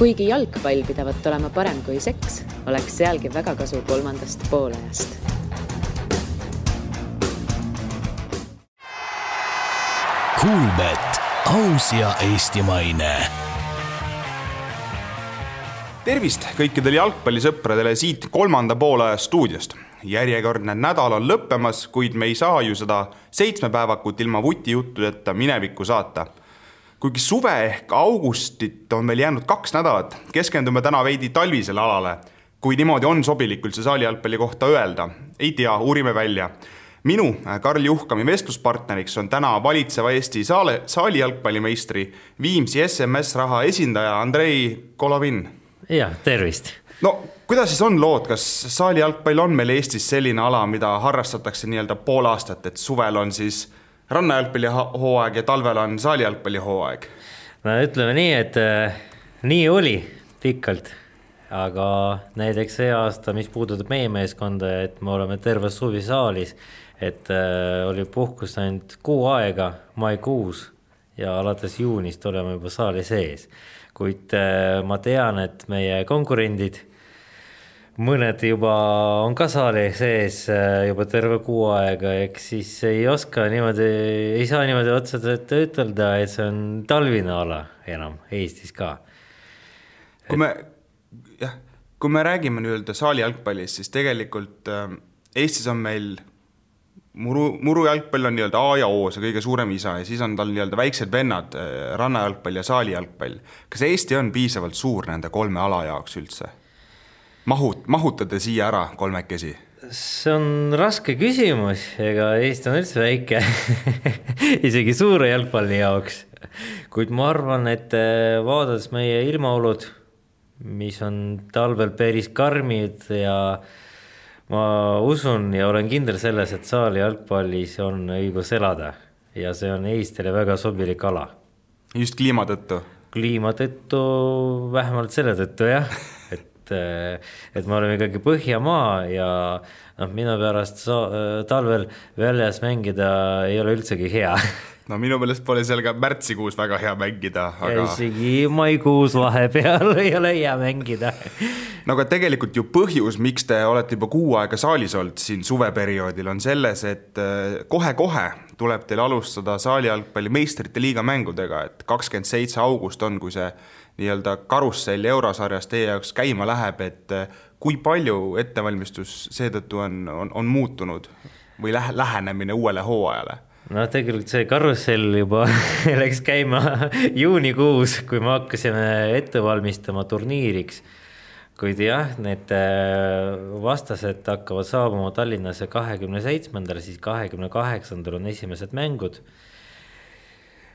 Kuigi jalgpall pidavat olema parem kui seks, oleks sealgi väga kasu kolmandast poolajast. Kuulbet, aus ja eestimaine. Tervist kõikidele jalgpallisõpradele siit kolmanda poolaja stuudiost. Järjekordne nädal on lõppemas, kuid me ei saa ju seda 7 päevakut ilma vutijuttudeta minevikku saata. Kuigi suve ehk augustit on meil jäänud 2 nädalat, keskendume täna veidi talvisele alale. Kui niimoodi on sobilikult see saali jalgpalli kohta öelda, ei tea, uurime välja. Minu, Karl Juhkami vestluspartneriks on täna valitseva Eesti saali jalgpallimeistri Viimsi SMS raha esindaja Andrei Kolovin. Ja, tervist. No, kuidas siis on lood? Kas saali jalgpall on meil Eestis selline ala, mida harrastatakse nii-öelda pool aastat, et suvel on siis rannajalgpalli hooaeg ja talvel on saali jalgpalli hooaeg? No ütleme nii, et nii oli pikalt, aga näiteks see aasta, mis puudutab meie meeskonda, et me oleme terve suvi saalis, et oli puhkus ainult 6 aega maikuus ja alates juunist oleme juba saali sees. Kuid ma tean, et meie konkurendid, mõned juba on ka saali sees juba terve 6 aega, eks siis ei saa niimoodi otseselt ütelda, et see on talvine ala enam Eestis ka. Kui me räägime nüüd saali jalgpallist, siis tegelikult Eestis on meil muru jalgpall on nii-öelda A ja O, see kõige suurem isa, ja siis on tal nii-öelda väiksed vennad, rannajalgpall ja saali jalgpall. Kas Eesti on piisavalt suur nende 3 ala jaoks üldse? Mahutate siia ära 3-kesi? See on raske küsimus, ega Eesti on üldse väike, isegi suure jalgpalli jaoks. Kuid ma arvan, et vaadates meie ilmaolud, mis on talvel päris karmid ja ma usun ja olen kindel selles, et saali jalgpallis on õigus elada ja see on Eestile väga sobilik ala. Just kliima tõttu? Kliima tõttu, vähemalt selle tõttu, jah. Et me oleme ikkagi Põhjamaa ja minu pärast talvel väljas mängida ei ole üldsegi hea. No minu meelest pole seal ka märtsikuus väga hea mängida. Ja isegi maikuus vahepeal ei ole hea mängida. No aga tegelikult ju põhjus, miks te olete juba 6 aega saalis olnud siin suveperioodil, on selles, et kohe-kohe tuleb teil alustada saali jalgpalli meistrite liiga mängudega, et 27. august on, kui see nii-öelda karussell eurosarjas teie jaoks käima läheb, et kui palju ettevalmistus seetõttu on muutunud või lähenemine uuele hooajale? No tegelikult see karussell juba läks käima juunikuus, kui me hakkasime ette valmistama turniiriks. Kuid jah, need vastased hakkavad saabuma Tallinnasse 27. siis 28. on esimesed mängud.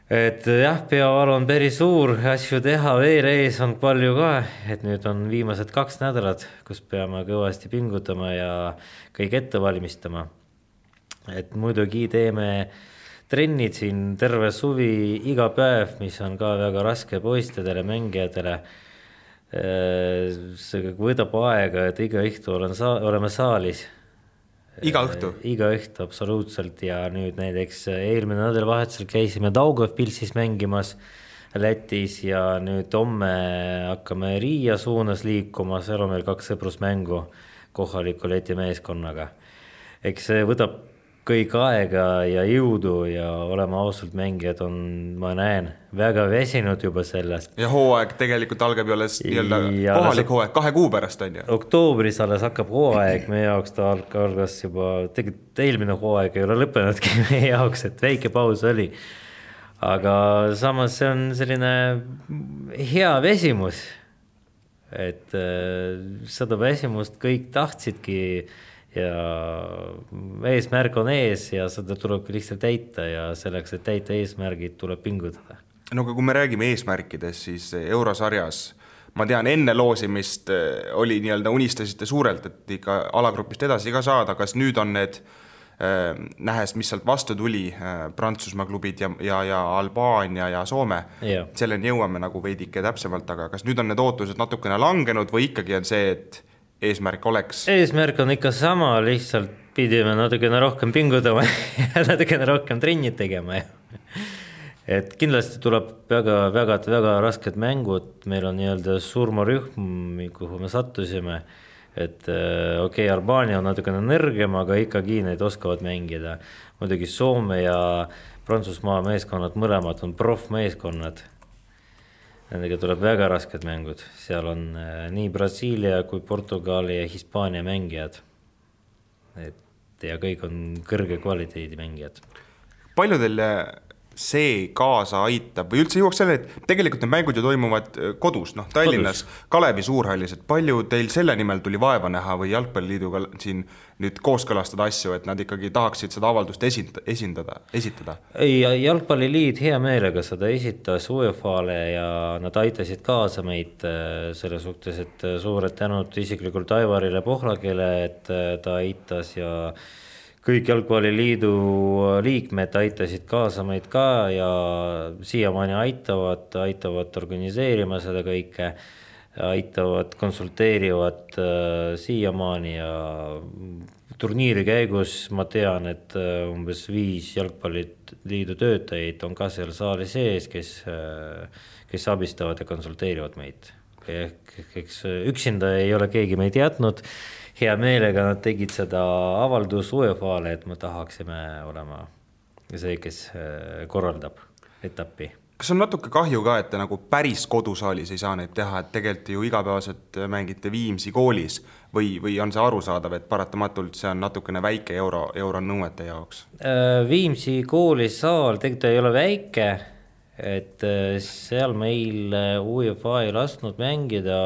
Et jah, peaval on päris suur asju teha, veel ees on palju ka, et nüüd on viimased 2 nädalat, kus peame kõvasti pingutama ja kõik ette valmistama. Et muidugi teeme trennid siin terve suvi iga päev, mis on ka väga raske poistedele, mängijatele. See võtab aega, et iga õhtu oleme saalis. Iga õhtu? Iga õhtu, absoluutselt. Ja nüüd näiteks eelmine nädalavahetusel käisime Daugavpilsis mängimas Lätis ja nüüd homme hakkame Riia suunas liikuma, seal on meil 2 sõprusmängu kohaliku Läti meeskonnaga. Eks see võtab kõik aega ja jõudu ja olema ausalt mängijad on, ma näen, väga väsinud juba sellest. Ja hooaeg tegelikult algab ju alles kohalik hooaeg 2 kuu pärast on ju? Oktoobris alles hakkab hooaeg, meie jaoks ta algas juba, tegelikult eelmine hooaeg ei ole lõppenudki meie jaoks, et väike paus oli. Aga samas see on selline hea väsimus, et seda väsimust kõik tahtsidki ja eesmärk on ees ja seda tuleb lihtsalt täita ja selleks, et täita eesmärgid, tuleb pingutada. No kui me räägime eesmärkides, siis eurosarjas, ma tean, enne loosimist oli nii-öelda unistasite suurelt, et ikka alagrupist edasi ka saada, kas nüüd on need, nähes, mis sealt vastu tuli, Prantsusmaa klubid ja Albaania ja Soome, selleni jõuame nagu veidike täpsemalt, aga kas nüüd on need ootused natukene langenud või ikkagi on see, et eesmärk oleks? Eesmärk on ikka sama, lihtsalt pidime natukene rohkem pingutama ja natukene rohkem trennid tegema. et kindlasti tuleb väga rasked mängud, meil on nii-öelda surmarühm, kuhu me sattusime, et okei, Albaania on natukene nõrgem, aga ikkagi need oskavad mängida. Muidugi Soome ja Prantsusmaa meeskonnad mõlemad on profmeeskonnad. Nendega tuleb väga rasked mängud. Seal on nii Brasiilia kui Portugali ja Hispaania mängijad. Ja kõik on kõrge kvaliteedi mängijad. Palju teile see kaasa aitab või üldse jõuaks selle, et tegelikult need mängud ju toimuvad kodus, Tallinnas, Kalevi suurhallis, et palju teil selle nimel tuli vaeva näha või Jalgpalliliiduga siin nüüd kooskõlastada asju, et nad ikkagi tahaksid seda avaldust esitada? Ei, Jalgpalliliit hea meelega seda esitas UEFA-le ja nad aitasid kaasa meid selle suhtes, et suured tänud isiklikult Aivarile Pohlakele, et ta aitas ja kõik Jalgpalliliidu liikmed aitasid kaasa meid ka ja siiamaani aitavad organiseerima seda kõike, aitavad, konsulteerivad siiamaani ja turniiri käigus ma tean, et umbes 5 Jalgpalliliidu töötajaid on ka seal saali sees, kes abistavad ja konsulteerivad meid. Eks üksinda ei ole keegi meid jätnud. Hea meelega nad tegid seda avaldus UEFA-le, et me tahaksime olema see, kes korraldab etappi. Kas on natuke kahju ka, et te nagu päris kodusaalis ei saa neid teha, et tegelikult ju igapäevaselt mängite Viimsi koolis või on see arusaadav, et paratamatult see on natukene väike euro nõuete jaoks? Viimsi koolisaal tegelikult ei ole väike, et seal meil UEFA ei lasknud mängida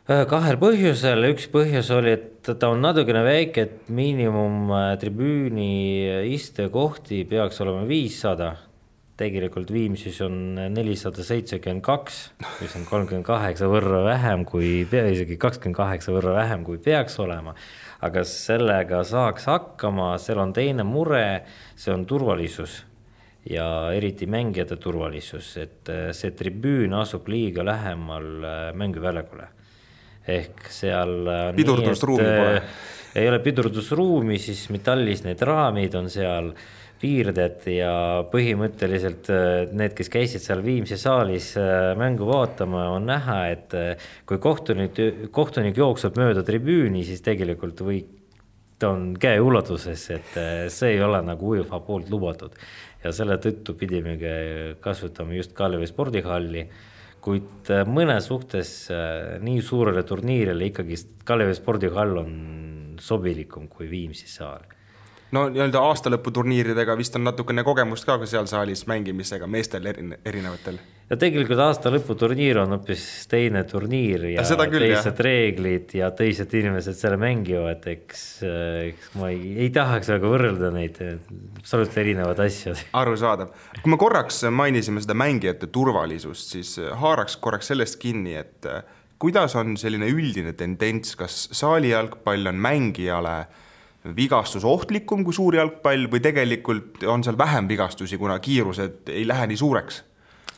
kahel põhjusel. Üks põhjus oli, et ta on natukene väike, et miinimum tribüüni istekohti peaks olema 500. Tegelikult Viimsis on 472, mis on 38 võrra vähem isegi 28 võrra vähem kui peaks olema. Aga sellega saaks hakkama, seal on teine mure, see on turvalisus ja eriti mängijate turvalisus, et see tribüün asub liiga lähemal mänguväljakule. Ehk seal pidurdusruumi pole. Ei ole pidurdusruumi, siis metallis need raamid on seal piirded ja põhimõtteliselt need, kes käisid seal Viimsi saalis mängu vaatama, on näha, et kui kohtunik jookseb mööda tribüüni, siis tegelikult ta on käe ulatuses, et see ei ole nagu UEFA poolt lubatud. Ja selle tõttu pidime kasutama just Kalevi spordihalli, kuid mõne suhtes nii suurele turniirile ikkagi Kalevi spordihall on sobilikum kui Viimsi saal. No nii-öelda aastalõputurniiridega vist on natukene kogemust ka seal saalis mängimisega meestel erinevatel. Ja tegelikult aastalõputurniir on hoopis teine turniir ja teised reeglid ja teised inimesed selle mängivad, eks ma ei tahaks väga võrrelda neid absoluutselt erinevad asjad. Arusaadav. Kui me korraks mainisime seda mängijate turvalisust, siis haaraks korraks sellest kinni, et kuidas on selline üldine tendents, kas saali jalgpall on mängijale vigastus ohtlikum kui suur jalgpall või tegelikult on seal vähem vigastusi, kuna kiirused ei lähe nii suureks?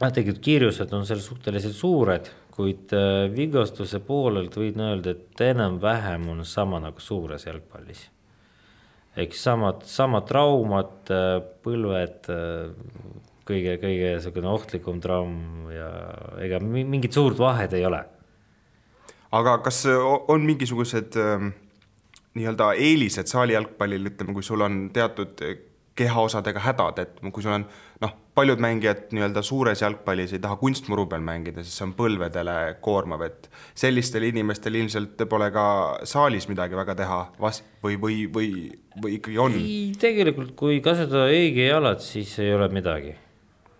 Tegelikult kiirused on seal suhteliselt suured, kuid vigastuse poolelt võin öelda, et enam vähem on sama nagu suures jalgpallis. Eks samad traumad, põlved, kõige ohtlikum traum ja ega mingit suurt vahet ei ole. Aga kas on mingisugused nii-öelda eelised saali jalgpallil, ütleme, kui sul on teatud kehaosadega hädad, et kui sul on paljud mängijad nii-öelda suures jalgpallis ei taha kunstmuru peal mängida, siis see on põlvedele koormav, et sellistel inimestel ilmselt pole ka saalis midagi väga teha või ikkagi on? Tegelikult, kui kasutada õige jalad, siis ei ole midagi.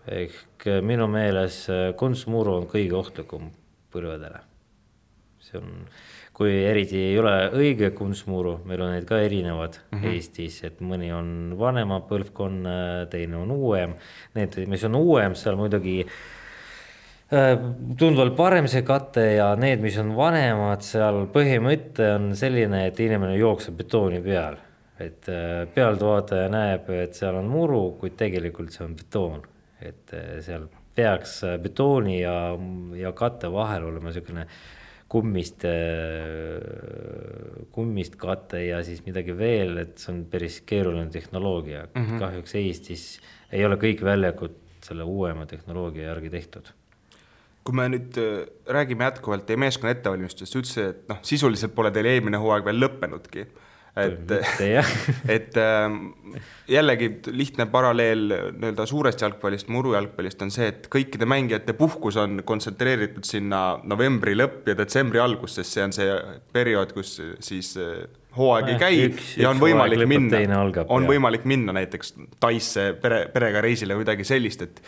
Ehk minu meeles kunstmuru on kõige ohtlikum põlvedele. See on kui eriti ei ole õige kunstmuru, meil on need ka erinevad Eestis, et mõni on vanema põlvkonna, teine on uuem. Need, mis on uuem, seal muidugi tundvalt parem see kate ja need, mis on vanemad, seal põhimõte on selline, et inimene jookseb betooni peal. Et pealtvaataja näeb, et seal on muru, kuid tegelikult see on betoon. Et seal peaks betooni ja katte vahel olema selline kummist kate ja siis midagi veel, et see on päris keeruline tehnoloogia. Kahjuks Eestis ei ole kõik väljakud selle uuema tehnoloogia järgi tehtud. Kui me nüüd räägime jätkuvalt teie meeskonna ettevalmistust, ütlesid, et sisuliselt pole teil eelmine hooaeg veel lõppenudki. Et jällegi lihtne paralleel nii-öelda suurest jalgpallist, murujalgpallist on see, et kõikide mängijate puhkus on kontsentreeritud sinna novembri lõpp ja detsembri algus, sest see on see periood, kus siis hooaeg ei käi ja on võimalik minna näiteks Taisse perega reisile või midagi sellist, et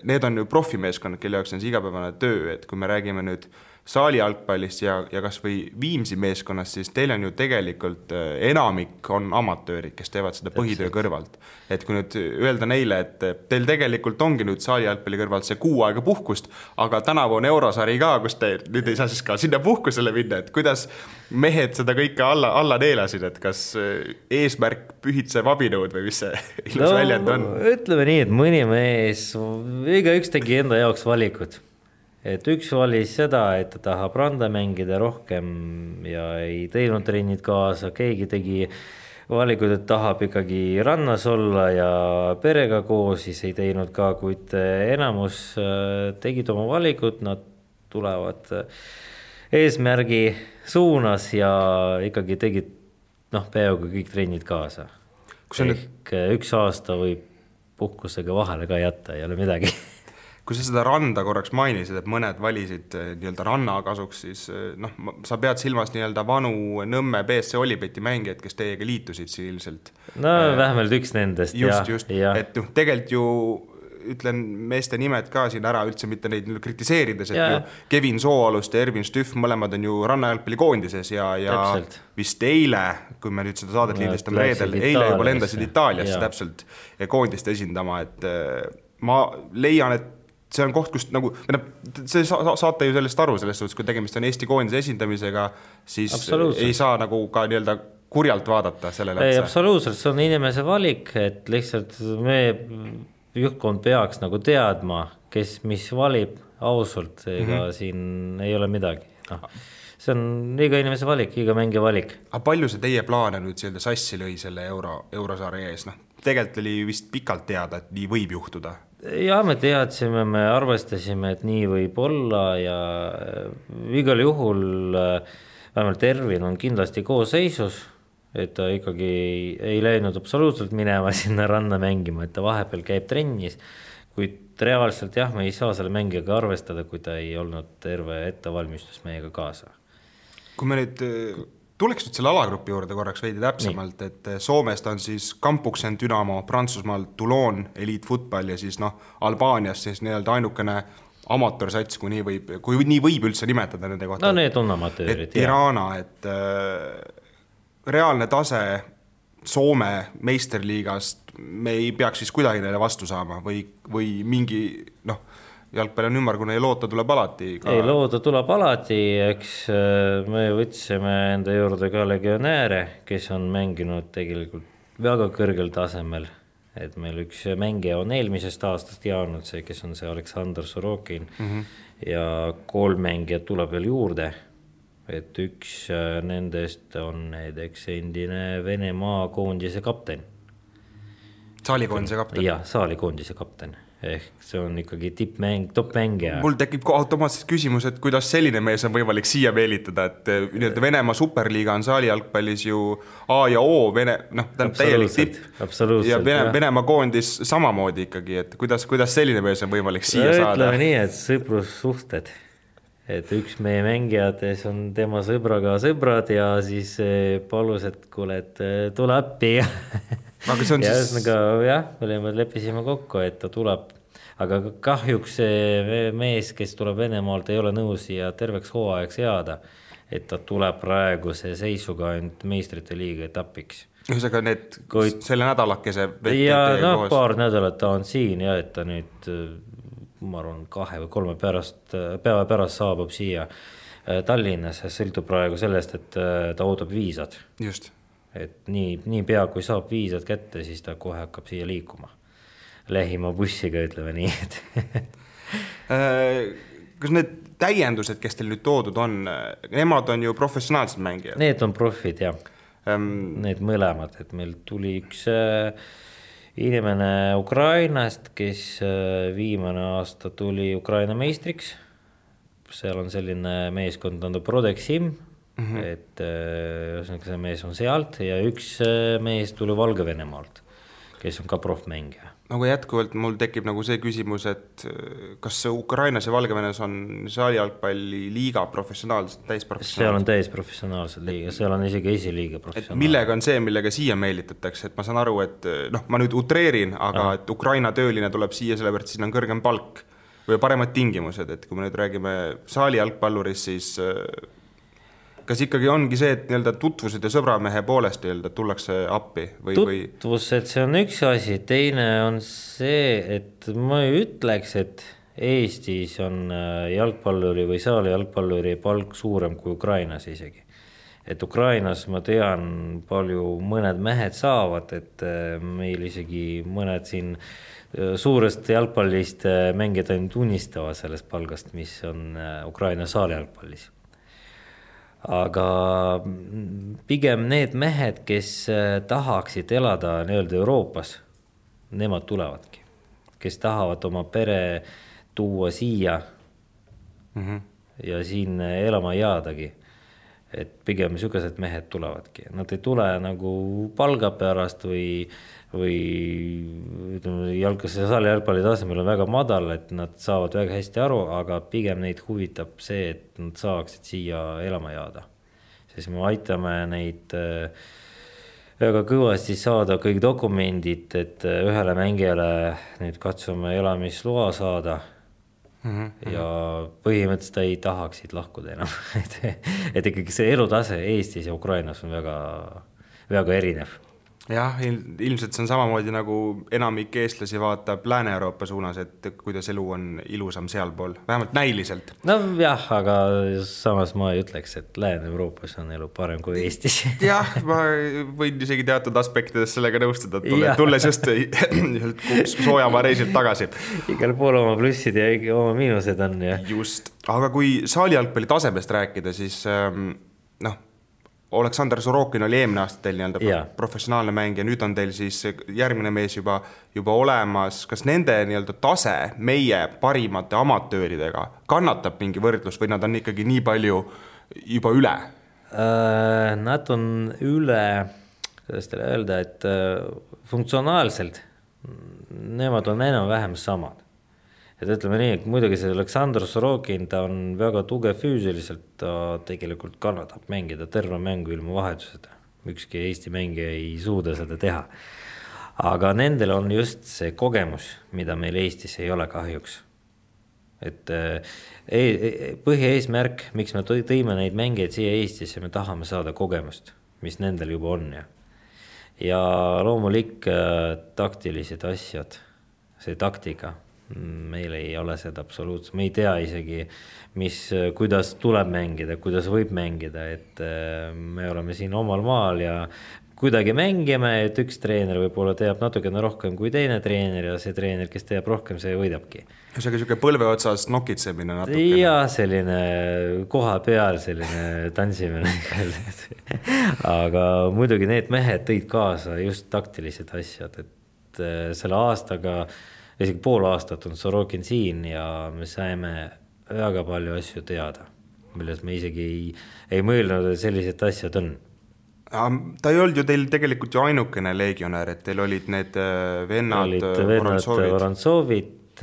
need on ju profimeeskonnad, kelle jaoks on see igapäevane töö, et kui me räägime nüüd saali jalgpallist ja kas või Viimsi meeskonnast, siis teil on ju tegelikult enamik on amatöörid, kes teevad seda põhitöö kõrvalt. Et kui nüüd öelda neile, et teil tegelikult ongi nüüd saali jalgpalli kõrvalt see 6 aega puhkust, aga tänavu on eurosari ka, kus te nüüd ei saa siis ka sinna puhkusele minna, et kuidas mehed seda kõike alla neelasid, et kas eesmärk pühitseb abinõud või mis see ilus väljend on? Ütleme nii, et mõni mees, igaüks tegi enda jaoks valikud. Et üks valis seda, et ta tahab randa mängida rohkem ja ei teinud trennid kaasa, keegi tegi valikud, et tahab ikkagi rannas olla ja perega koos, siis ei teinud ka, kuid enamus tegid oma valikud, nad tulevad eesmärgi suunas ja ikkagi tegid peaaegu kõik trennid kaasa. Ehk üks aasta võib puhkusega vahele ka jätta, ei ole midagi. Kui sa seda randa korraks mainisid, et mõned valisid nii-öelda ranna kasuks, siis sa pead silmas nii-öelda vanu Nõmme BSC Olipeti mängijad, kes teiega liitusid siin ilmselt. Vähemalt üks nendest. Just. Et tegelikult ju ütlen meeste nimed ka siin ära, üldse mitte neid kritiseerides, et ju Kevin Sooalust ja Ervin Stüff mõlemad on ju rannajalgpalli koondises ja vist eile, kui me nüüd seda saadet liidestame reedel, eile juba lendasid Itaaliasse täpselt koondist esindama, et ma leian, et see on koht, kus see saate ju sellest aru, selles suhtes, kui tegemist on Eesti koondise esindamisega, siis ei saa nagu ka nii-öelda kurjalt vaadata sellele. Ei, absoluutselt, see on inimese valik, et lihtsalt me juhtkond peaks nagu teadma, kes mis valib ausalt, ega siin ei ole midagi. See on iga inimese valik, iga mängija valik. Aga palju see teie plaane nüüd sassi lõi selle eurosaari ees? Tegelikult oli vist pikalt teada, et nii võib juhtuda. Ja me teadsime, me arvestasime, et nii võib olla ja igal juhul vähemalt Ervin on kindlasti koosseisus, et ta ikkagi ei läinud absoluutselt minema sinna ranna mängima, et ta vahepeal käib trennis, kuid reaalselt me ei saa selle mängijaga arvestada, kui ta ei olnud terve ettevalmistus meiega kaasa. Kui me nüüd tuleks nüüd selle alagrupi juurde korraks veidi täpsemalt, et Soomest on siis Kampuksen Dynamo, Prantsusmaal Toulon Elite Football ja siis Albaanias siis nii-öelda ainukene amatoorsats, kui nii võib üldse nimetada nende kohta. Need on amatöörid. Et Tirana, et reaalne tase Soome meisterliigast me ei peaks siis kuidagi neile vastu saama või mingi jalgpall on ümmargune ja loota tuleb alati. Ei, loota tuleb alati, eks me võtsime enda juurde ka legionääre, kes on mänginud tegelikult väga kõrgel tasemel. Et meil üks mängija on eelmisest aastast jaanud see, kes on see Aleksandr Sorokin ja 3 mängijat tuleb veel juurde. Et üks nendest on näiteks endine Venemaa koondise kapten. Saalikoondise kapten? Jah, saalikoondise kapten. Ehk see on ikkagi top-mängija. Mul tekib automaatselt küsimus, et kuidas selline mees on võimalik siia meelitada, et Venemaa superliiga on saali jalgpallis ju A ja O, täielik tipp ja Venemaa koondis samamoodi ikkagi, et kuidas selline mees on võimalik siia saada? Ütleme nii, et sõprussuhted. Et üks meie mängijades on tema sõbraga sõbrad ja siis palus, et kuule, et tule appi. Aga see on ja siis... me leppisime kokku, et ta tuleb. Aga kahjuks see mees, kes tuleb Venemaalt, ei ole nõus ja terveks hooajaks jääda. Et ta tuleb praeguse seisuga ainult meistrite liiga etapiks. Ühesõnaga selle nädalakese ja paar nädalat ta on siin ja et ta nüüd... ma arvan 2 või 3 päeva pärast saabub siia Tallinnas, sõltub praegu sellest, et ta ootab viisad. Just. Et nii pea, kui saab viisad kätte, siis ta kohe hakkab siia liikuma. Lähima bussiga, ütleme nii. Kas need täiendused, kes teil nüüd toodud on, nemad on ju professionaalsed mängijad? Need on profid, jah. Need mõlemad, et meil tuli üks inimene Ukrainast, kes viimane aasta tuli Ukraina meistriks. Seal on selline meeskond, on Prodexim, et see mees on sealt ja üks mees tuli Valgevenemaalt, kes on ka profmängija. Nagu jätkuvalt mul tekib nagu see küsimus, et kas Ukrainas ja Valgevenes on saalijalgpalli liiga professionaalsed, täisprofessionaalsed? Seal on täisprofessionaalsed liiga, seal on isegi esiliiga professionaalsed. Millega on see, millega siia meelitatakse? Et ma saan aru, et ma nüüd utreerin, aga et Ukraina tööline tuleb siia sellepärast, siin on kõrgem palk või paremad tingimused, et kui me nüüd räägime saalijalgpallurist, siis kas ikkagi ongi see, et tutvused ja sõbramehe poolest tullakse appi? Tutvused, see on üks asi, teine on see, et ma ei ütleks, et Eestis on jalgpalluri või saali jalgpalluri palk suurem kui Ukrainas isegi. Et Ukrainas ma tean palju mõned mehed saavad, et meil isegi mõned siin suurest jalgpallist mängijad ainult unistavad sellest palgast, mis on Ukraina saali jalgpallis. Aga pigem need mehed, kes tahaksid elada Euroopas, nemad tulevadki. Kes tahavad oma pere tuua siia ja siin elama jäädagi. Et pigem niisugused mehed tulevadki. Nad ei tule nagu palga pärast või saali jalgpalli tasemel on väga madal, et nad saavad väga hästi aru, aga pigem neid huvitab see, et nad saaksid siia elama jääda. Siis me aitame neid väga kõvasti saada kõik dokumendid, et ühele mängijale nüüd katsume elamisloa saada ja põhimõtteliselt ei tahaksid lahkuda enam. et ikkagi see elutase Eestis ja Ukrainas on väga, väga erinev. Jah, ilmselt see on samamoodi nagu enamik eestlasi vaatab Lääne-Euroopa suunas, et kuidas elu on ilusam sealpool, vähemalt näiliselt. No jah, aga samas ma ei ütleks, et Lääne-Euroopas on elu parem kui Eestis. Jah, ma võin isegi teatud aspektides sellega nõustuda, tulles just soojamaa reisilt tagasi. Igal pool oma plussid ja oma miinused on. Ja. Just, aga kui saalijalgpalli tasemest rääkida, siis Oleksandr Sorokin oli eelmine aasta teil professionaalne mäng ja nüüd on teil siis järgmine mees juba olemas. Kas nende tase meie parimate amatööridega kannatab mingi võrdlus või nad on ikkagi nii palju juba üle? Nad on üle, kuidas teile öelda, et funktsionaalselt nemad on enam-vähem samad. Et ütleme nii, et muidugi see Oleksandr Sorokin, ta on väga tugev füüsiliselt, ta tegelikult kannatab mängida terve mängu ilma vahetuseta. Ükski Eesti mängija ei suuda seda teha. Aga nendel on just see kogemus, mida meil Eestis ei ole kahjuks. Et põhieesmärk, miks me tõime neid mängijaid siia Eestisse, me tahame saada kogemust, mis nendel juba on. Ja loomulik taktilised asjad, see taktika, meil ei ole seda absoluutselt, me ei tea isegi, kuidas tuleb mängida, kuidas võib mängida, et me oleme siin omal maal ja kuidagi mängime, et üks treener võib-olla teab natukene rohkem kui teine treener ja see treener, kes teab rohkem, see võidabki. Selline põlve otsas nokitsemine natukene. Ja selline koha peal selline tantsimine. Aga muidugi need mehed tõid kaasa just taktilised asjad, et selle aastaga isegi pool aastat on Sorokin siin ja me saime väga palju asju teada, milles me isegi ei mõelnud, et sellised asjad on. Ta ei olnud ju teil tegelikult ju ainukene legionär, et teil olid need vennad Vorontsovit,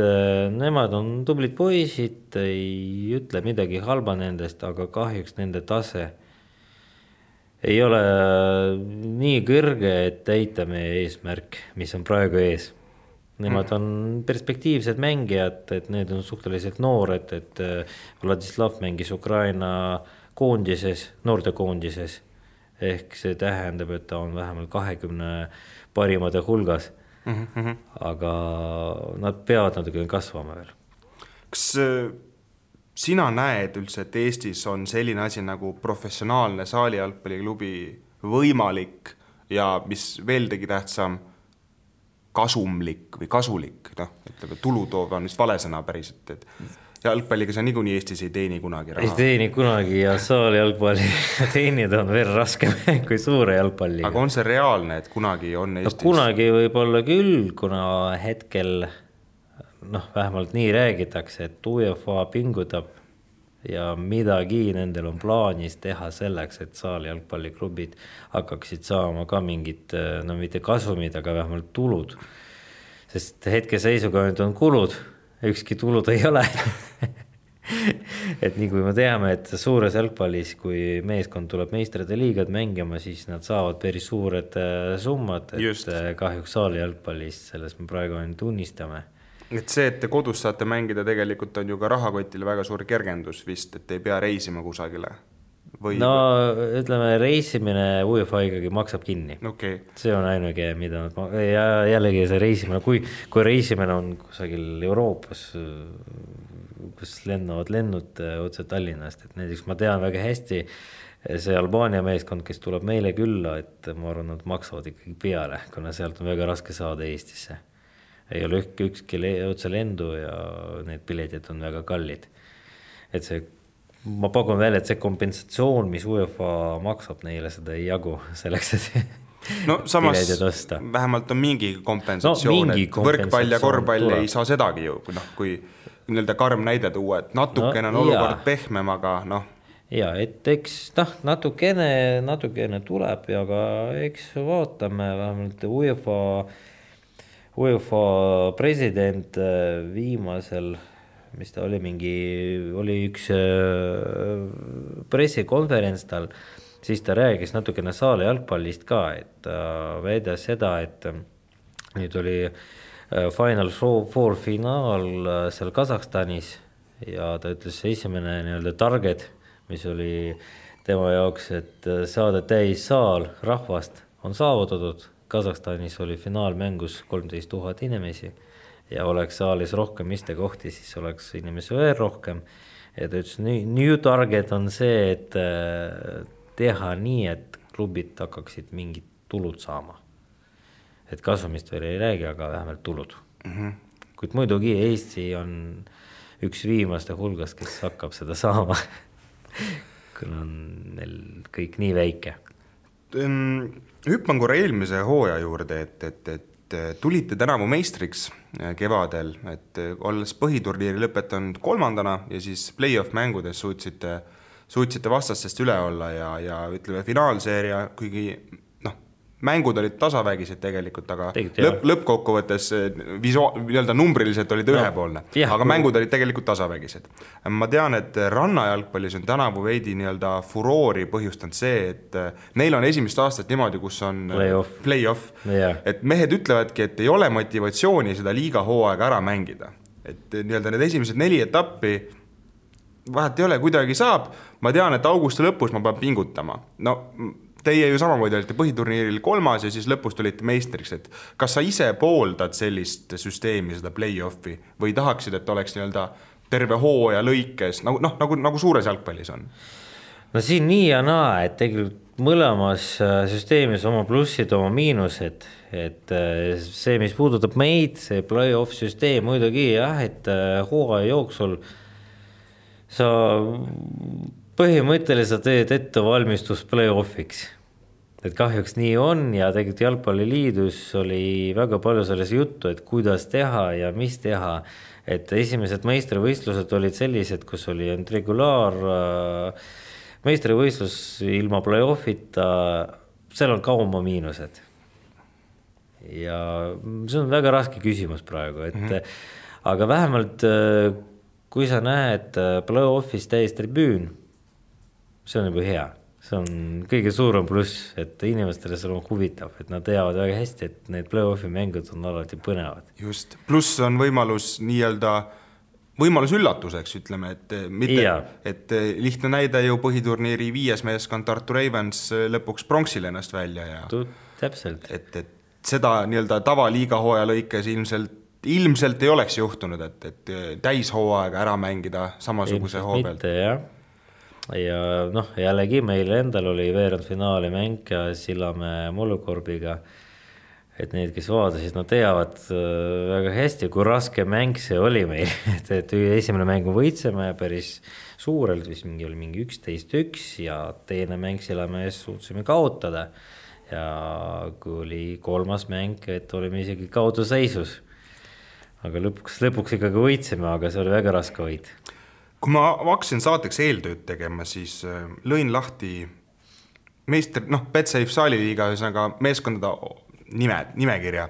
nemad on tublid poisid, ei ütle midagi halba nendest, aga kahjuks nende tase ei ole nii kõrge, et täita meie eesmärk, mis on praegu ees. Nemad on perspektiivsed mängijad, et need on suhteliselt noored, et Vladislav mängis Ukraina koondises, noorte koondises, ehk see tähendab, et ta on vähemalt 20 parimate hulgas, aga nad peavad natuke kasvama veel. Kas sina näed üldse, et Eestis on selline asi nagu professionaalne saalijalgpalliklubi võimalik ja mis veel tegi tähtsam, kasumlik või kasulik, ütleme, tulutoov on vist valesõna päriselt, et jalgpalliga sa niikuinii Eestis ei teeni kunagi raha. Ei teeni kunagi ja saali jalgpalli teenida on veel raskem kui suure jalgpalliga. Aga on see reaalne, et kunagi on Eestis? No, kunagi võib olla küll, kuna hetkel vähemalt nii räägitakse, et UEFA pingutab ja midagi nendel on plaanis teha selleks, et saali jalgpalliklubid hakkaksid saama ka mingid, mitte kasumid, aga vähemalt tulud. Sest hetke seisuga nüüd on kulud, ükski tulud ei ole. Et nii kui me teame, et suures jalgpallis, kui meeskond tuleb meistrite liigad mängima, siis nad saavad päris suured summad, et just. Kahjuks saali jalgpallis, selles me praegu tunnistame. Et see, et te kodus saate mängida, tegelikult on ju ka rahakotile väga suur kergendus vist, et ei pea reisima kusagile. No ütleme, reisimine UEFA ikkagi maksab kinni. Okay. See on ainuke, mida ja jällegi see reisimine, kui reisimine on kusagil Euroopas, kus lennuvad lennud otse Tallinnast, et näiteks ma tean väga hästi see Albaania meeskond, kes tuleb meile külla, et ma arvan, nad maksavad ikkagi peale, kuna sealt on väga raske saada Eestisse. Ei ole ükski otse lendu ja need piletid on väga kallid. Et see, ma pakun välja, et see kompensatsioon, mis UEFA maksab neile, seda ei jagu selleks, et no samas vähemalt on mingi kompensatsioon, et võrkpall ja korvpall ei saa sedagi ju, kui nii-öelda karm näide tuua, et natukene on olukord pehmem, aga Ja, et eks natukene tuleb, aga eks vaatame vähemalt UEFA president viimasel, mis ta oli oli üks pressikonverents tal, siis ta räägis natukene saali jalgpallist ka, et väidas seda, et nüüd oli Final Four finaal seal Kasahstanis ja ta ütles esimene nii-öelda target, mis oli tema jaoks, et saada täis saal rahvast on saavutatud. Kasahstanis oli finaalmängus 13 000 inimesi ja oleks saalis rohkem istekohti, siis oleks inimesi veel rohkem. Ja ta ütles, new target on see, et teha nii, et klubid hakkaksid mingid tulud saama. Et kasumist veel ei räägi, aga vähemalt tulud. Kuid muidugi Eesti on üks viimaste hulgast, kes hakkab seda saama, kuna on neil kõik nii väike. Hüppan korra eelmise hooaja juurde, et tulite tänavu meistriks kevadel, et olles põhiturniiri lõpetanud 3. ja siis play-off mängudes suutsite vastastest üle olla ja ütleme finaalseeria, kuigi mängud olid tasavägised tegelikult, aga lõppkokkuvõttes nii-öelda numbriliselt olid ühepoolne, aga mängud olid tegelikult tasavägised. Ma tean, et rannajalgpallis on tänavu veidi nii-öelda furoori põhjustanud see, et neil on esimest aastat niimoodi, kus on play-off. Et mehed ütlevadki, et ei ole motivatsiooni seda liiga hooaega ära mängida. Et nii-öelda need esimesed 4 etappi vahet ei ole, kuidagi saab. Ma tean, et augusti lõpus ma pean pingutama. Teie ju samamoodi olite põhiturniiril 3. ja siis lõpus tulite meistriks, et kas sa ise pooldad sellist süsteemi, seda play-offi, või tahaksid, et oleks nii-öelda terve hooaja lõikes, nagu suures jalgpallis on? No siin nii ja naa, et tegelikult mõlemas süsteemis oma plussid, oma miinused, et see, mis puudutab meid, see play-off süsteem muidugi jah, et hooaja jooksul sa põhimõtteliselt teed ette valmistus play-offiks. Et kahjuks nii on ja tegelikult jalgpalliliidus oli väga palju selles juttu, et kuidas teha ja mis teha. Et esimesed meistrivõistlused olid sellised, kus oli regulaar meistrivõistlus ilma play-offita, seal on ka oma miinused. Ja see on väga raske küsimus praegu, et aga vähemalt kui sa näed play-offis täis tribüün, see on juba hea. See on kõige suurem pluss, et inimestele see on huvitav, et nad teavad väga hästi, et need play-offi mängud on alati põnevad. Just, pluss on võimalus üllatuseks, ütleme, et lihtne näide ju põhiturniiri 5. meeskond Tartu Ravens lõpuks pronksil ennast välja. Ja, täpselt. Et seda nii-öelda tavaliiga hooaja lõikes ilmselt ei oleks juhtunud, et täishooaega ära mängida samasuguse hoo pealt. Mitte, jah. Ja jällegi meil endal oli veerandfinaali mäng Sillamäe Mullukorbiga et need, kes vaadasid, nad teavad väga hästi, kui raske mäng see oli meil, et esimene mäng võitseme päris suurelt, vist oli mingi 11-1 ja teine mäng Sillamäes suutsime kaotada ja kui oli kolmas mäng, et olime isegi kaotuseisus, aga lõpuks ikkagi võitsime, aga see oli väga raske võit. Kui ma hakkasin saateks eeltööd tegema, siis lõin lahti meister, Betsafe Saaliliiga ühesõnaga meeskondade nimekirja.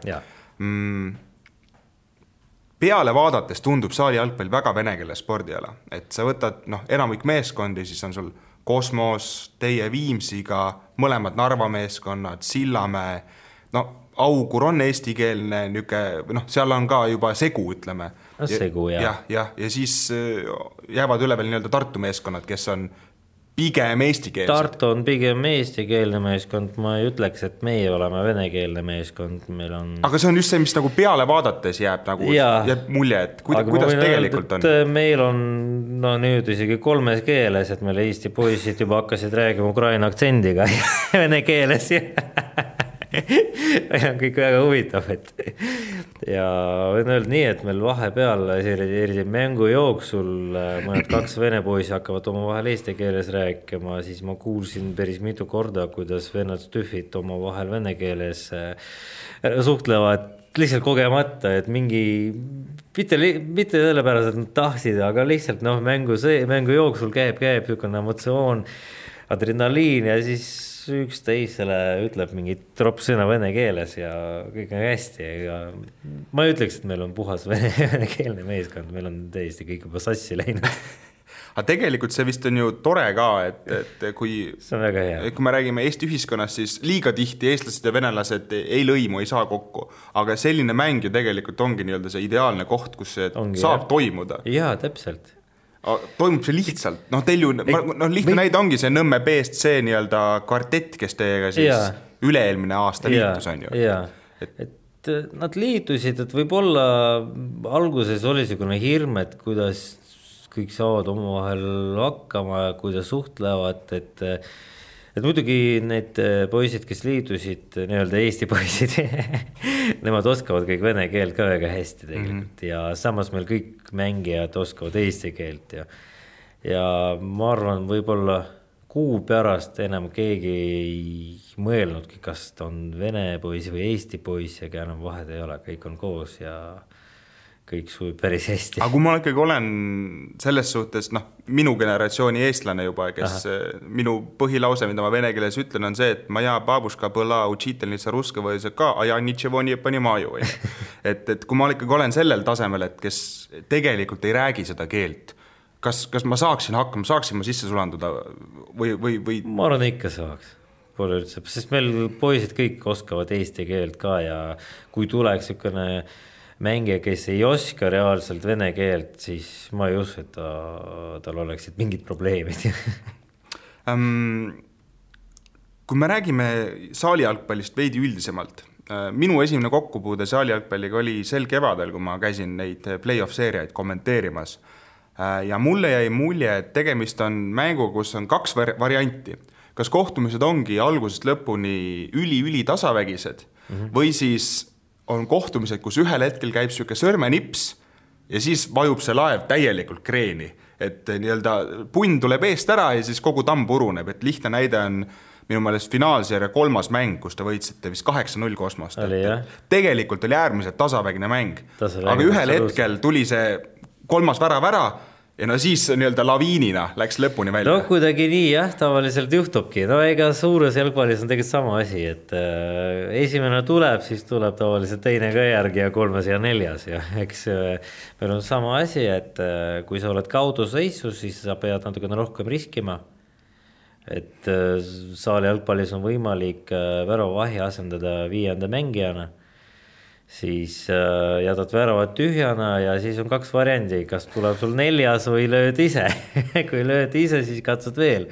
Peale vaadates tundub saali jalgpall väga venekeelne spordiala, et sa võtad enamik meeskondi, siis on sul Kosmos, teie Viimsiga, mõlemad Narva meeskonnad, Sillamäe, Augur on eestikeelne, seal on ka juba segu, ütleme. Segu, jah. Ja siis jäävad üle veel nii-öelda Tartu meeskonnad, kes on pigem eestikeelsed. Tartu on pigem eestikeelne meeskond, ma ei ütleks, et meie oleme venekeelne meeskond, meil on... Aga see on just see, mis nagu peale vaadates jääb mulje, et kuidas tegelikult on? Meil on nüüd isegi 3 keeles, et meil Eesti poisid juba hakkasid räägima ukraina aktsendiga vene keeles on kõik väga huvitav, ja võin öelda nii, et meil vahepeal eriti mängu jooksul mõned 2 vene poisi hakkavad oma vahel eesti keeles rääkima, siis ma kuulsin päris mitu korda, kuidas vennad stühvid oma vahel vene keeles suhtlevad lihtsalt kogemata, et mingi mitte sellepärast, et nad tahtsid, aga lihtsalt mängu jooksul käib niisugune emotsioon, adrenaliin ja siis üksteisele ütleb mingi tropsõna vene keeles ja kõik on hästi. Ja ma ei ütleks, et meil on puhas venekeelne meeskond, meil on täiesti kõik juba sassi läinud. Aga tegelikult see vist on ju tore ka, et kui me räägime Eesti ühiskonnast, siis liiga tihti eestlased ja venelased ei lõimu, ei saa kokku. Aga selline mäng ju tegelikult ongi nii-öelda see ideaalne koht, kus see saab toimuda. Jaa, täpselt. Toimub see lihtsalt, teil ju, lihtne näide ongi see Nõmme BSC nii-öelda kvartett, kes teiega siis üle-eelmine aasta liitus on ju. Et nad liitusid, et võib-olla alguses oli selline hirm, et kuidas kõik saavad omavahel hakkama ja kuidas suhtlevad, et muidugi need poisid, kes liitusid, nii-öelda Eesti poisid, nemad oskavad kõik vene keelt ka väga hästi tegelikult ja samas meil kõik mängijad oskavad eesti keelt ja ma arvan, võib-olla kuu pärast enam keegi ei mõelnudki, kas ta on vene poiss või Eesti poiss, aga enam vahed ei ole, kõik on koos ja kõik sujub päris hästi. Aga kui ma ikkagi olen selles suhtes, minu generatsiooni eestlane juba, kes minu põhilause, mida ma vene keeles ütlen, on see, et maja babuška põla učitelnitsa ruska või see ka, aja ničevo nii pani maju. Et kui ma ikkagi olen sellel tasemel, et kes tegelikult ei räägi seda keelt, kas ma saaksin hakkama, saaksin ma sisse sulanduda või? Ma arvan, ikka saaks. Pole üldse, sest meil poisid kõik oskavad eesti keelt ka ja kui tuleks ükene mängija, kes ei oska reaalselt vene keelt, siis ma ei usu, et tal oleksid mingid probleemid. Kui me räägime saalijalgpallist veidi üldisemalt, minu esimene kokkupuude saalijalgpalliga oli sel kevadel, kui ma käisin neid play-off-seeriaid kommenteerimas. Ja mulle jäi mulje, et tegemist on mängu, kus on 2 varianti. Kas kohtumised ongi algusest lõpuni üli tasavägised või siis on kohtumised, kus ühel hetkel käib selline sõrmenips ja siis vajub see laev täielikult kreeni, et nii-öelda punn tuleb eest ära ja siis kogu tamm puruneb, et lihtne näide on minu meelest finaalseeria 3. mäng, kus te võitsite vist 8-0 Kosmost. Tegelikult oli äärmiselt tasavägine mäng, aga ühel hetkel tuli see 3. värav ära ja siis nii-öelda laviinina läks lõpuni välja. Kuidagi nii tavaliselt juhtubki. Ega suures jalgpallis on tegelikult sama asi, et esimene tuleb, siis tuleb tavaliselt teine ka järgi ja 3. ja 4. ja eks meil on sama asi, et kui sa oled kauduseisus, siis sa pead natukene rohkem riskima. Et saali jalgpallis on võimalik väravavahi asendada 5. mängijana. Siis jätad väravad tühjana ja siis on 2 variandi, kas tuleb sul 4. või lööd ise. Kui lööd ise, siis katsud veel.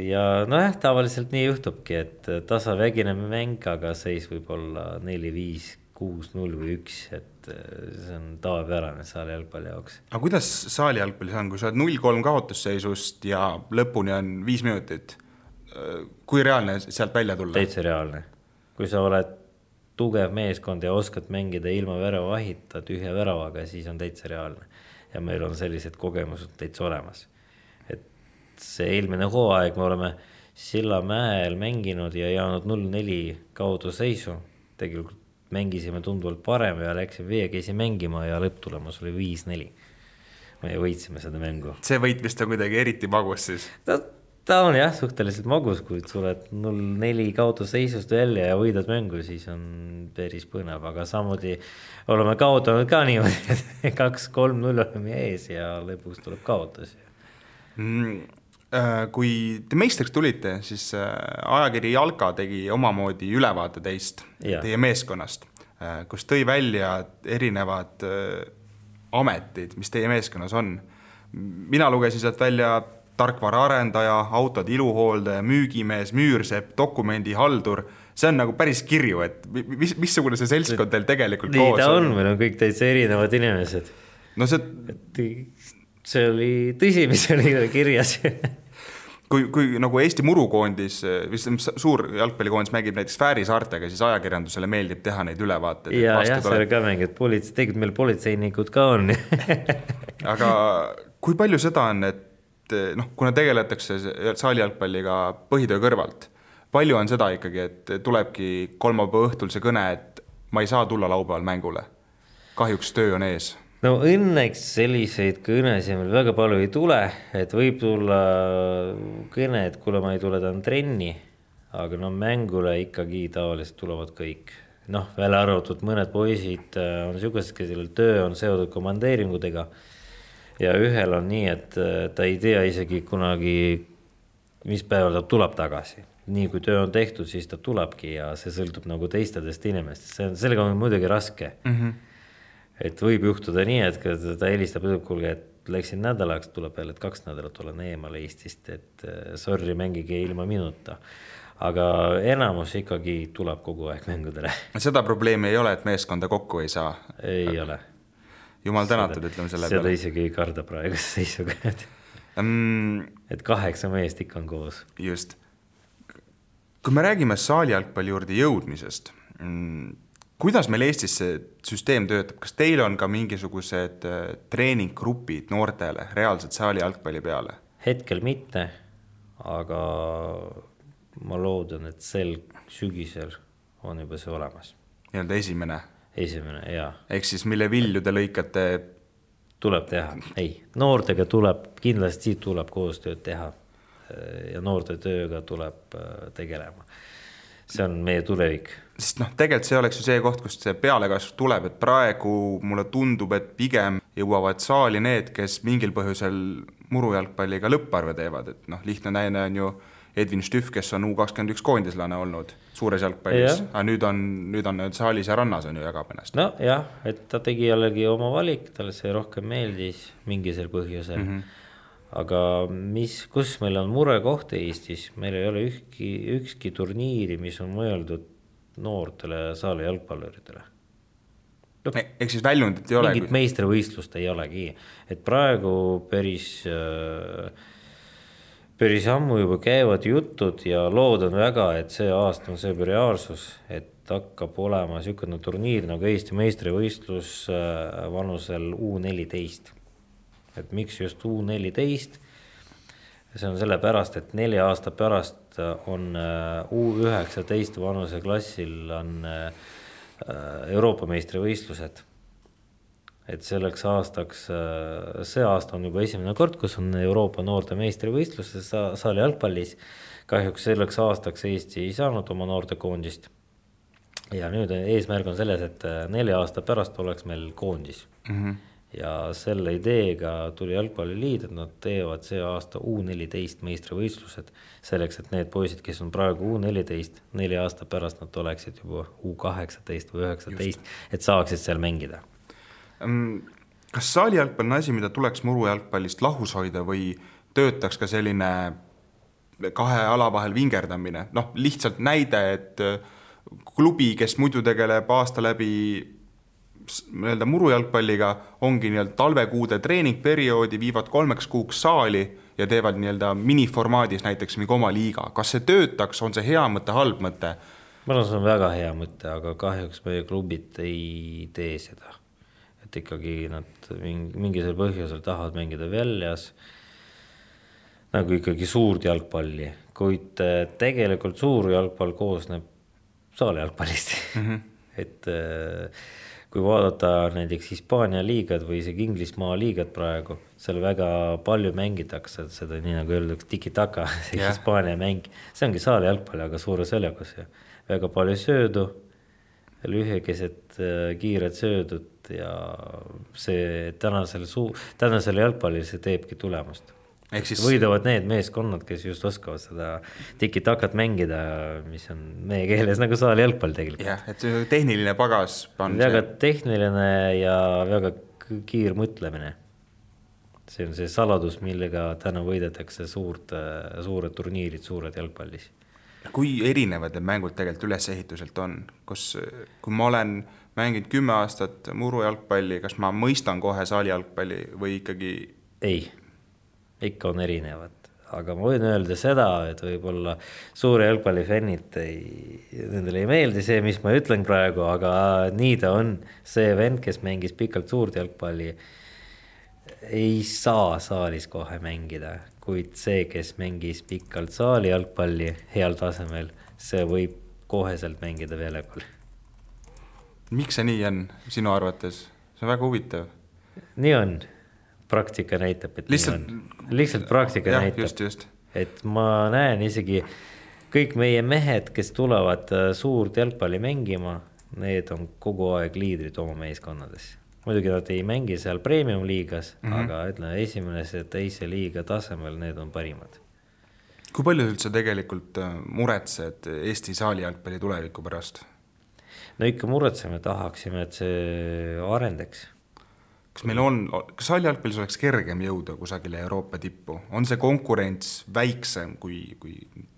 Ja tavaliselt nii juhtubki, et tasavägine mäng, aga seis võib olla 4-5, 6-0 või 1, et see on tavapärane saali jalgpalli jaoks. Aga kuidas saali jalgpallis on, kui sa oled 0-3 kaotusseisust ja lõpuni on 5 minutit? Kui reaalne sealt välja tulla? Täitsa reaalne. kui sa oled tugev meeskond ja oskad mängida ilma väravahita tühja väravaga, siis on täitsa reaalne. Ja meil on sellised kogemused täitsa olemas. Et see eelmine hooaeg me oleme Sillamäel mänginud ja jäänud 0-4 kaudu seisu. Tegelikult mängisime tunduvalt parem ja läksime veekeisi mängima ja lõpptulemus oli 5-4. Me võitsime seda mängu. See võit vist on kuidagi eriti magus siis? Ta on jah suhteliselt magus, kui tuled 0-4 kaudu seisust välja ja võidad mängu, siis on päris põnev, aga samuti oleme kaotanud ka niimoodi, et 2-3-0 oleme ees ja lõpuks tuleb kaotus. Kui te meistriks tulite, siis ajakiri Jalka tegi omamoodi ülevaate teist, teie meeskonnast, kus tõi välja erinevad ametid, mis teie meeskonnas on. Mina lugesin sealt välja tarkvara arendaja, autod iluhooldaja, müügimees, müürsepp, dokumendihaldur. See on nagu päris kirju, et missugune see seltskond teil tegelikult koos on? Nii ta on, meil on kõik täitsa erinevad inimesed. No see oli tõsi, mis oli kirjas. Kui nagu Eesti murukoondis, suur jalgpallikoondis mängib näiteks Fääri saartega, siis ajakirjandusele meeldib teha neid ülevaateid. Ja see oli ka mängid, tegelikult meil politseinikud ka on. Aga kui palju seda on, et kuna tegeletakse saali jalgpalliga põhitöö kõrvalt, palju on seda ikkagi, et tulebki kolmapäeva õhtul see kõne, et ma ei saa tulla laupäeval mängule? Kahjuks töö on ees. No õnneks selliseid kõnesid meil väga palju ei tule, et võib tulla kõne, et kuule ma ei tule ta trenni, aga mängule ikkagi tavaliselt tulevad kõik. Välja arvatud mõned poisid on niisugused, kellel töö on seotud komandeeringudega ja ühel on nii, et ta ei tea isegi kunagi, mis päeval ta tuleb tagasi. Nii kui töö on tehtud, siis ta tulebki ja see sõltub nagu teistadest inimestest. Sellega on muidugi raske. Et võib juhtuda nii, et ta helistab kuulge, et läksin nädalaks, tuleb jälle, et 2 nädalat olen eemal Eestist, et sorry, mängige ilma minuta. Aga enamus ikkagi tuleb kogu aeg mängudele. Seda probleemi ei ole, et meeskonda kokku ei saa? Ei ole. Jumal tänatud, ütleme selle peale. Seda isegi ei karda praegust seisuga. Et 8 meest ikka on koos. Just. Kui me räägime saali jalgpalli juurde jõudmisest, kuidas meil Eestis see süsteem töötab? Kas teil on ka mingisugused treeninggrupid noortele reaalselt saali jalgpalli peale? Hetkel mitte, aga ma loodan, et sel sügisel on juba see olemas. Nii-öelda esimene? Esimene, jaa. Ehk siis mille vilju te lõikate? Tuleb teha. Ei, noortega kindlasti tuleb koostööd teha ja noorte tööga tuleb tegelema. See on meie tulevik. Sest tegelikult see oleks ju see koht, kust see pealekasv tuleb, et praegu mulle tundub, et pigem jõuavad saali need, kes mingil põhjusel murujalgpalliga lõpparve teevad. Et lihtne näine on ju Edvin Stüff, kes on U21 koondislane olnud suures jalgpallis. Aga nüüd on saalis ja rannas on ju jagab ennast. No jah, et ta tegi jällegi oma valik, talle see rohkem meeldis mingisel põhjusel. Aga kus meil on murekoht Eestis, meil ei ole ükski turniiri, mis on mõeldud noortele saali jalgpalluritele. Ehk siis väljundit ei ole? Mingit meistrivõistlust ei olegi. Et praegu päris ammu juba käivad jutud ja loodan väga, et see aasta on see reaalsus, et hakkab olema niisugune turniir nagu Eesti meistrivõistlus vanusel U14. Et miks just U14? See on selle pärast, et 4 aasta pärast on U19 vanuse klassil on Euroopa meistrivõistlused. Et selleks aastaks, see aasta on juba esimene kord, kus on Euroopa noorte meistrivõistlus saali jalgpallis. Kahjuks selleks aastaks Eesti ei saanud oma noorte koondist. Ja nüüd eesmärk on selles, et 4 aasta pärast oleks meil koondis. Ja selle ideega tuli jalgpalliliit, et nad teevad see aasta U14 meistrivõistlused selleks, et need poisid, kes on praegu U14, 4 aasta pärast nad oleksid juba U18 või 19, et saaksid seal mängida. Kas saali jalgpall on asi, mida tuleks murujalgpallist lahus hoida või töötaks ka selline 2 ala vahel vingerdamine? Lihtsalt näide, et klubi, kes muidu tegeleb aasta läbi murujalgpalliga, ongi talvekuude treeningperioodi, viivad 3 kuuks saali ja teevad miniformaadis näiteks mingi oma liiga. Kas see töötaks, on see hea mõte, halb mõte? Ma arvan, see on väga hea mõte, aga kahjuks meie klubid ei tee seda. Et ikkagi nad mingisel põhjusel tahavad mängida väljas nagu ikkagi suurt jalgpalli, kuid tegelikult suur jalgpall koosneb saali jalgpallist. Et kui vaadata näiteks Hispaania liigad või isegi Inglismaa liigad praegu, seal väga palju mängitakse seda, nii nagu öeldakse tiki-taka, see Hispaania mäng. See ongi saali jalgpalli, aga suures väljakus. Väga palju söödu, lühekesed kiired söödud ja see tänasel jalgpallil see teebki tulemust. Siis... Võidavad need meeskonnad, kes just oskavad seda tiki-takat mängida, mis on meie keeles nagu saali jalgpall tegelikult. Jah, et see tehniline pagas on väga tehniline ja väga kiir mõtlemine. See on see saladus, millega täna võidetakse suured turniirid, suured jalgpallis. Kui erinevad need mängud tegelikult ülesehituselt on? Kui ma olen mänginud 10 aastat muru jalgpalli, kas ma mõistan kohe saali jalgpalli või ikkagi... Ei. Ikka on erinevad, aga ma võin öelda seda, et võib-olla suure jalgpallifännid nendele ei meeldi see, mis ma ütlen praegu, aga nii ta on. See vend, kes mängis pikalt suurt jalgpalli, ei saa saalis kohe mängida, kuid see, kes mängis pikalt saali jalgpalli heal tasemel, see võib koheselt mängida väljakul. Miks see nii on sinu arvates? See on väga huvitav. Nii on. Praktika näitab, et lihtsalt praktika näitab, just. Et ma näen isegi kõik meie mehed, kes tulevad suurt jalgpalli mängima, need on kogu aeg liidrid oma meeskonnades. Muidugi nad ei mängi seal premium liigas, aga ütleme, esimese teise liiga tasemel need on parimad. Kui palju üldse tegelikult muretsed Eesti saali jalgpalli tuleviku pärast? No ikka muretseme, tahaksime, et see arendaks. Kas saali jalgpallis oleks kergem jõuda kusagile Euroopa tippu? On see konkurents väiksem, kui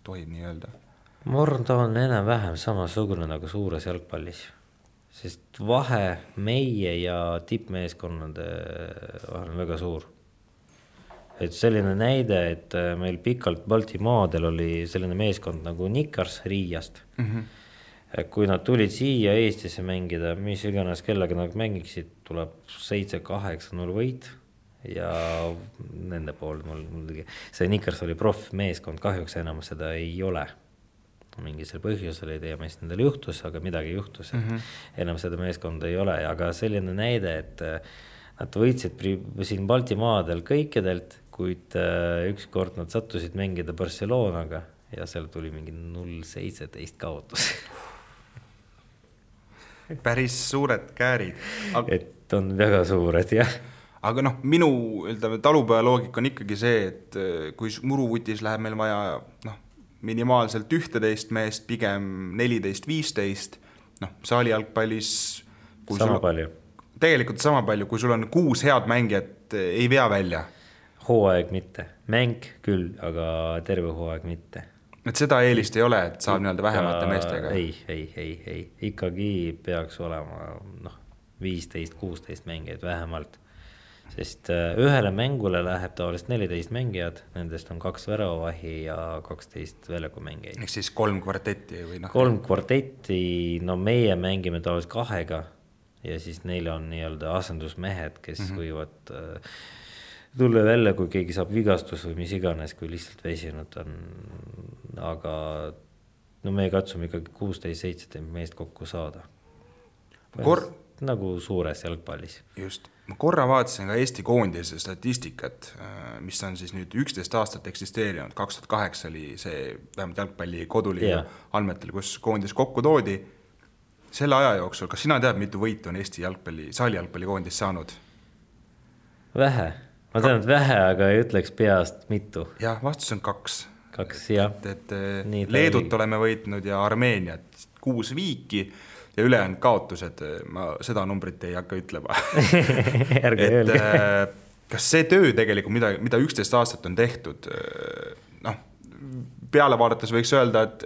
tohib nii öelda? Ma arvan, ta on enam vähem samasugune nagu suures jalgpallis. Sest vahe meie ja tippmeeskonnade vahel on väga suur. Et selline näide, et meil pikalt Baltimaadel oli selline meeskond nagu Nikars Riiast. Kui nad tulid siia Eestisse mängida, mis iganes kellega nad mängiksid, tuleb 7-8-0 võit ja nende pool muidugi. See Nikars oli meeskond, kahjuks enam seda ei ole. Mingisel põhjusel ei tea, mis nendel juhtus, aga midagi juhtus. Enam seda meeskonda ei ole, aga selline näide, et nad võitsid siin Baltimaadel kõikidelt, kuid ükskord nad sattusid mängida Barcelonaga ja seal tuli mingi 0-17 kaotus. Päris suured käärid. Et on väga suured, jah. Aga minu talupoja loogika on ikkagi see, et kui muruvutis läheb meil vaja minimaalselt 11 meest, pigem 14-15, saali jalgpallis sama palju. Tegelikult sama palju, kui sul on 6 head mängijat, ei vea välja. Hooaeg mitte. Mäng küll, aga terve hooaeg mitte. Et seda eelist ei ole, et saab vähemate meestega? Ei. Ikkagi peaks olema 15-16 mängijad vähemalt. Sest ühele mängule läheb tavaliselt 14 mängijad, nendest on 2 väravavahi ja 12 väljaku mängijaid. Ehk siis 3 kvartetti? Või 3 kvartetti, meie mängime tavaliselt 2 ja siis neil on nii-öelda asendusmehed, kes võivad tulla välja, kui keegi saab vigastus või mis iganes, kui lihtsalt väsinud on. Aga me katsume ikkagi 16-17 meest kokku saada. Nagu suures jalgpallis. Just. Ma korra vaatasin ka Eesti koondise statistikat, mis on siis nüüd 11 aastat eksisteerinud. 2008 oli see vähemalt jalgpalli koduliiga andmetel, kus koondis kokku toodi. Selle aja jooksul, kas sina tead, mitu võitu on Eesti saali jalgpalli koondis saanud? Vähe. Ma tean, et vähe, aga ei ütleks peast mitu. Jah, vastus on 2. 2, jah. Et Leedut oleme võitnud ja Armeeniat 6 viiki ja ülejäänud kaotused, ma seda numbrit ei hakka ütlema. Kas see töö tegelikult, mida 11 aastat on tehtud, peale vaadates võiks öelda, et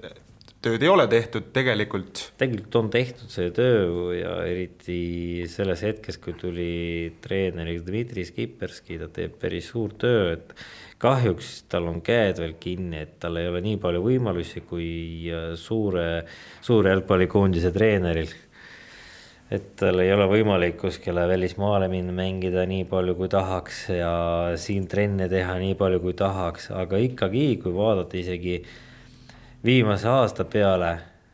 tööd ei ole tehtud tegelikult. Tegelikult on tehtud see töö ja eriti selles hetkes, kui tuli treeneriks Dmitri Skipperski, ta teeb päris suur töö, et kahjuks tal on käed veel kinni, et tal ei ole nii palju võimalusi kui suure jalgpallikoondise treeneril. Et tal ei ole võimalik kuskile välismaale minna mängida nii palju kui tahaks ja siin trenne teha nii palju kui tahaks, aga ikkagi, kui vaadata isegi viimase aasta peale,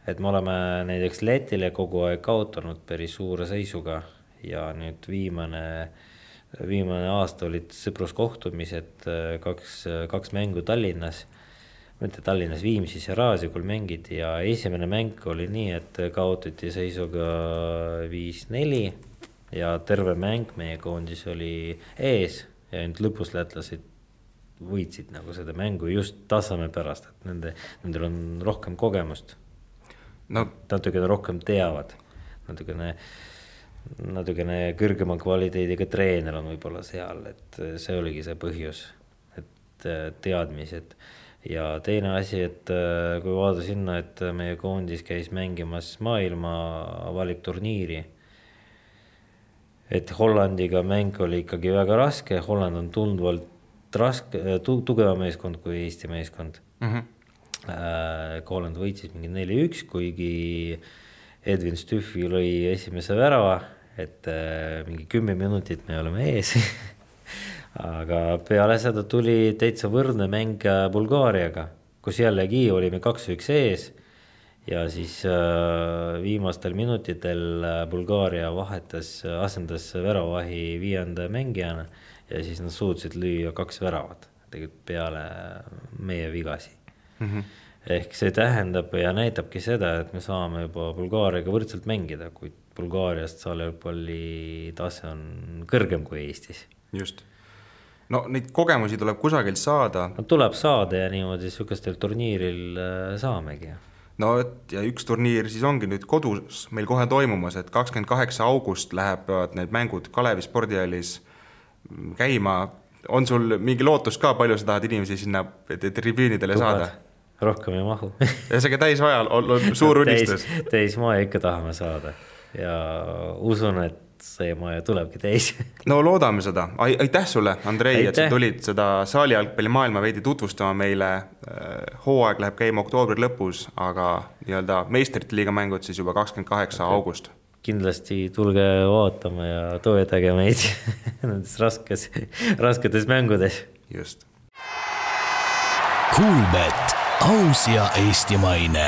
et me oleme näiteks Lätile kogu aeg kaotanud päris suure seisuga ja nüüd viimane aasta olid sõpruskohtumised, kaks mängu Tallinnas, mitte Tallinnas, Viimsis ja Raasjukul mängiti ja esimene mäng oli nii, et kaotati seisuga 5-4 ja terve mäng meie koondis oli ees ja nüüd lõpus lätlased võitsid nagu seda mängu just tasame pärast, et nendel on rohkem kogemust. Natukene rohkem teavad, natukene kõrgema kvaliteediga treener on võib-olla seal, et see oligi see põhjus, et teadmised. Ja teine asi, et kui vaada sinna, et meie koondis käis mängimas maailma valikturniiri, et Hollandiga mäng oli ikkagi väga raske, Holland on tundvalt tugeva meeskond kui Eesti meeskond. Holland võitsis mingi 4-1, kuigi Edwin Stüffi lõi esimese värava, et mingi 10 minutit me oleme ees. Aga peale seda tuli täitsa võrdne mäng Bulgaariaga, kus jällegi olime 2-1 ees ja siis viimastel minutitel Bulgaaria asendas väravahi 5. mängijana ja siis nad suutsid lüüa 2 väravat tegelikult peale meie vigasi. Ehk see tähendab ja näitabki seda, et me saame juba Bulgaariaga võrdselt mängida, kuid Bulgaariast jalgpalli tase on kõrgem kui Eestis. Just. No neid kogemusi tuleb kusagilt saada. No, tuleb saada ja niimoodi sükestel turniiril saamegi. No ja üks turniir siis ongi nüüd kodus meil kohe toimumas, et 28. august läheb need mängud Kalevi spordihallis käima. On sul mingi lootus ka, palju sa tahad inimesi sinna tribüünidele saada? Rohkem ei mahu. Ja see täisvajal on suur unistus. Täismaja ikka tahame saada ja usun, et see maja tulebki täis. No loodame seda. Aitäh sulle, Andrei, et sa tulid seda saalijalgpalli maailma veidi tutvustama meile. Hooaeg läheb käima oktoobri lõpus, aga meistrite liiga mängud siis juba 28. august. Kindlasti tulge vaatama ja toetage meid nendes rasketes mängudes. Just. Kuulbet, aus ja eestimaine.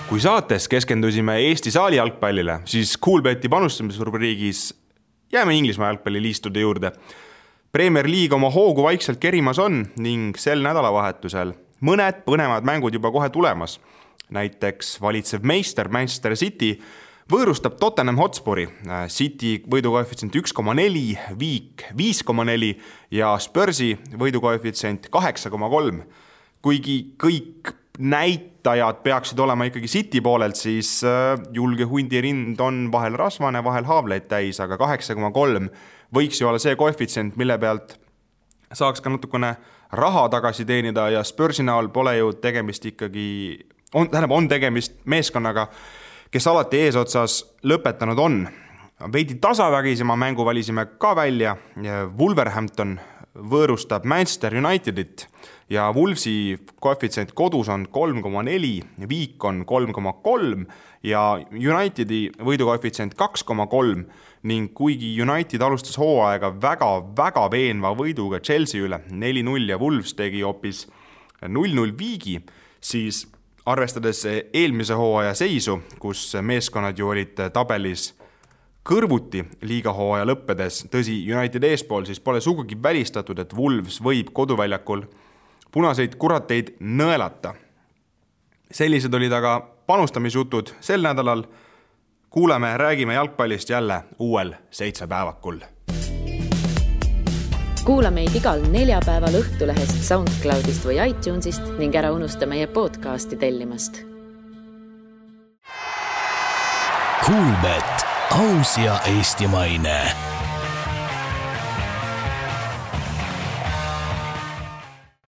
Kui saates keskendusime Eesti saali jalgpallile, siis Kuulbeti panustamisrubriigis jääme Inglismaa jalgpalliliistude juurde. Premier League oma hoogu vaikselt kerimas on ning sel nädalavahetusel mõned põnevad mängud juba kohe tulemas. Näiteks valitsev meister Manchester City võõrustab Tottenham Hotspuri, City võidukoefitsient 1,4, Viik 5,4 ja Spursi võidukoefitsient 8,3. Kuigi kõik näitajad peaksid olema ikkagi City poolelt, siis julge hundirind on vahel rasvane, vahel haavleid täis, aga 8,3 võiks ju olla see koefitsient, mille pealt saaks ka natukene raha tagasi teenida ja Spursi näol pole ju tegemist ikkagi, on tegemist meeskonnaga, kes alati eesotsas lõpetanud on. Veidi tasavägisema mängu valisime ka välja. Wolverhampton võõrustab Manchester Unitedit ja Wolvesi koefitsient kodus on 3,4, Viik on 3,3 ja Unitedi võidukoefitsient 2,3 ning kuigi United alustas hooaega väga veenva võiduga Chelsea üle 4-0 ja Wolves tegi hoopis 0-0 Viigi, siis arvestades eelmise hooaja seisu, kus meeskonnad ju olid tabelis kõrvuti liigahooaja lõppedes, tõsi United eespool, siis pole sugugi välistatud, et Wolves võib koduväljakul punaseid kurateid nõelata. Sellised olid aga panustamisjutud sel nädalal. Kuuleme, räägime jalgpallist jälle uuel 7 päevakul. Kuula meid igal 4 päeval Õhtulehest, SoundCloudist või iTunesist ning ära unusta meie podcasti tellimast. Kuulbet, aus ja eestimaine.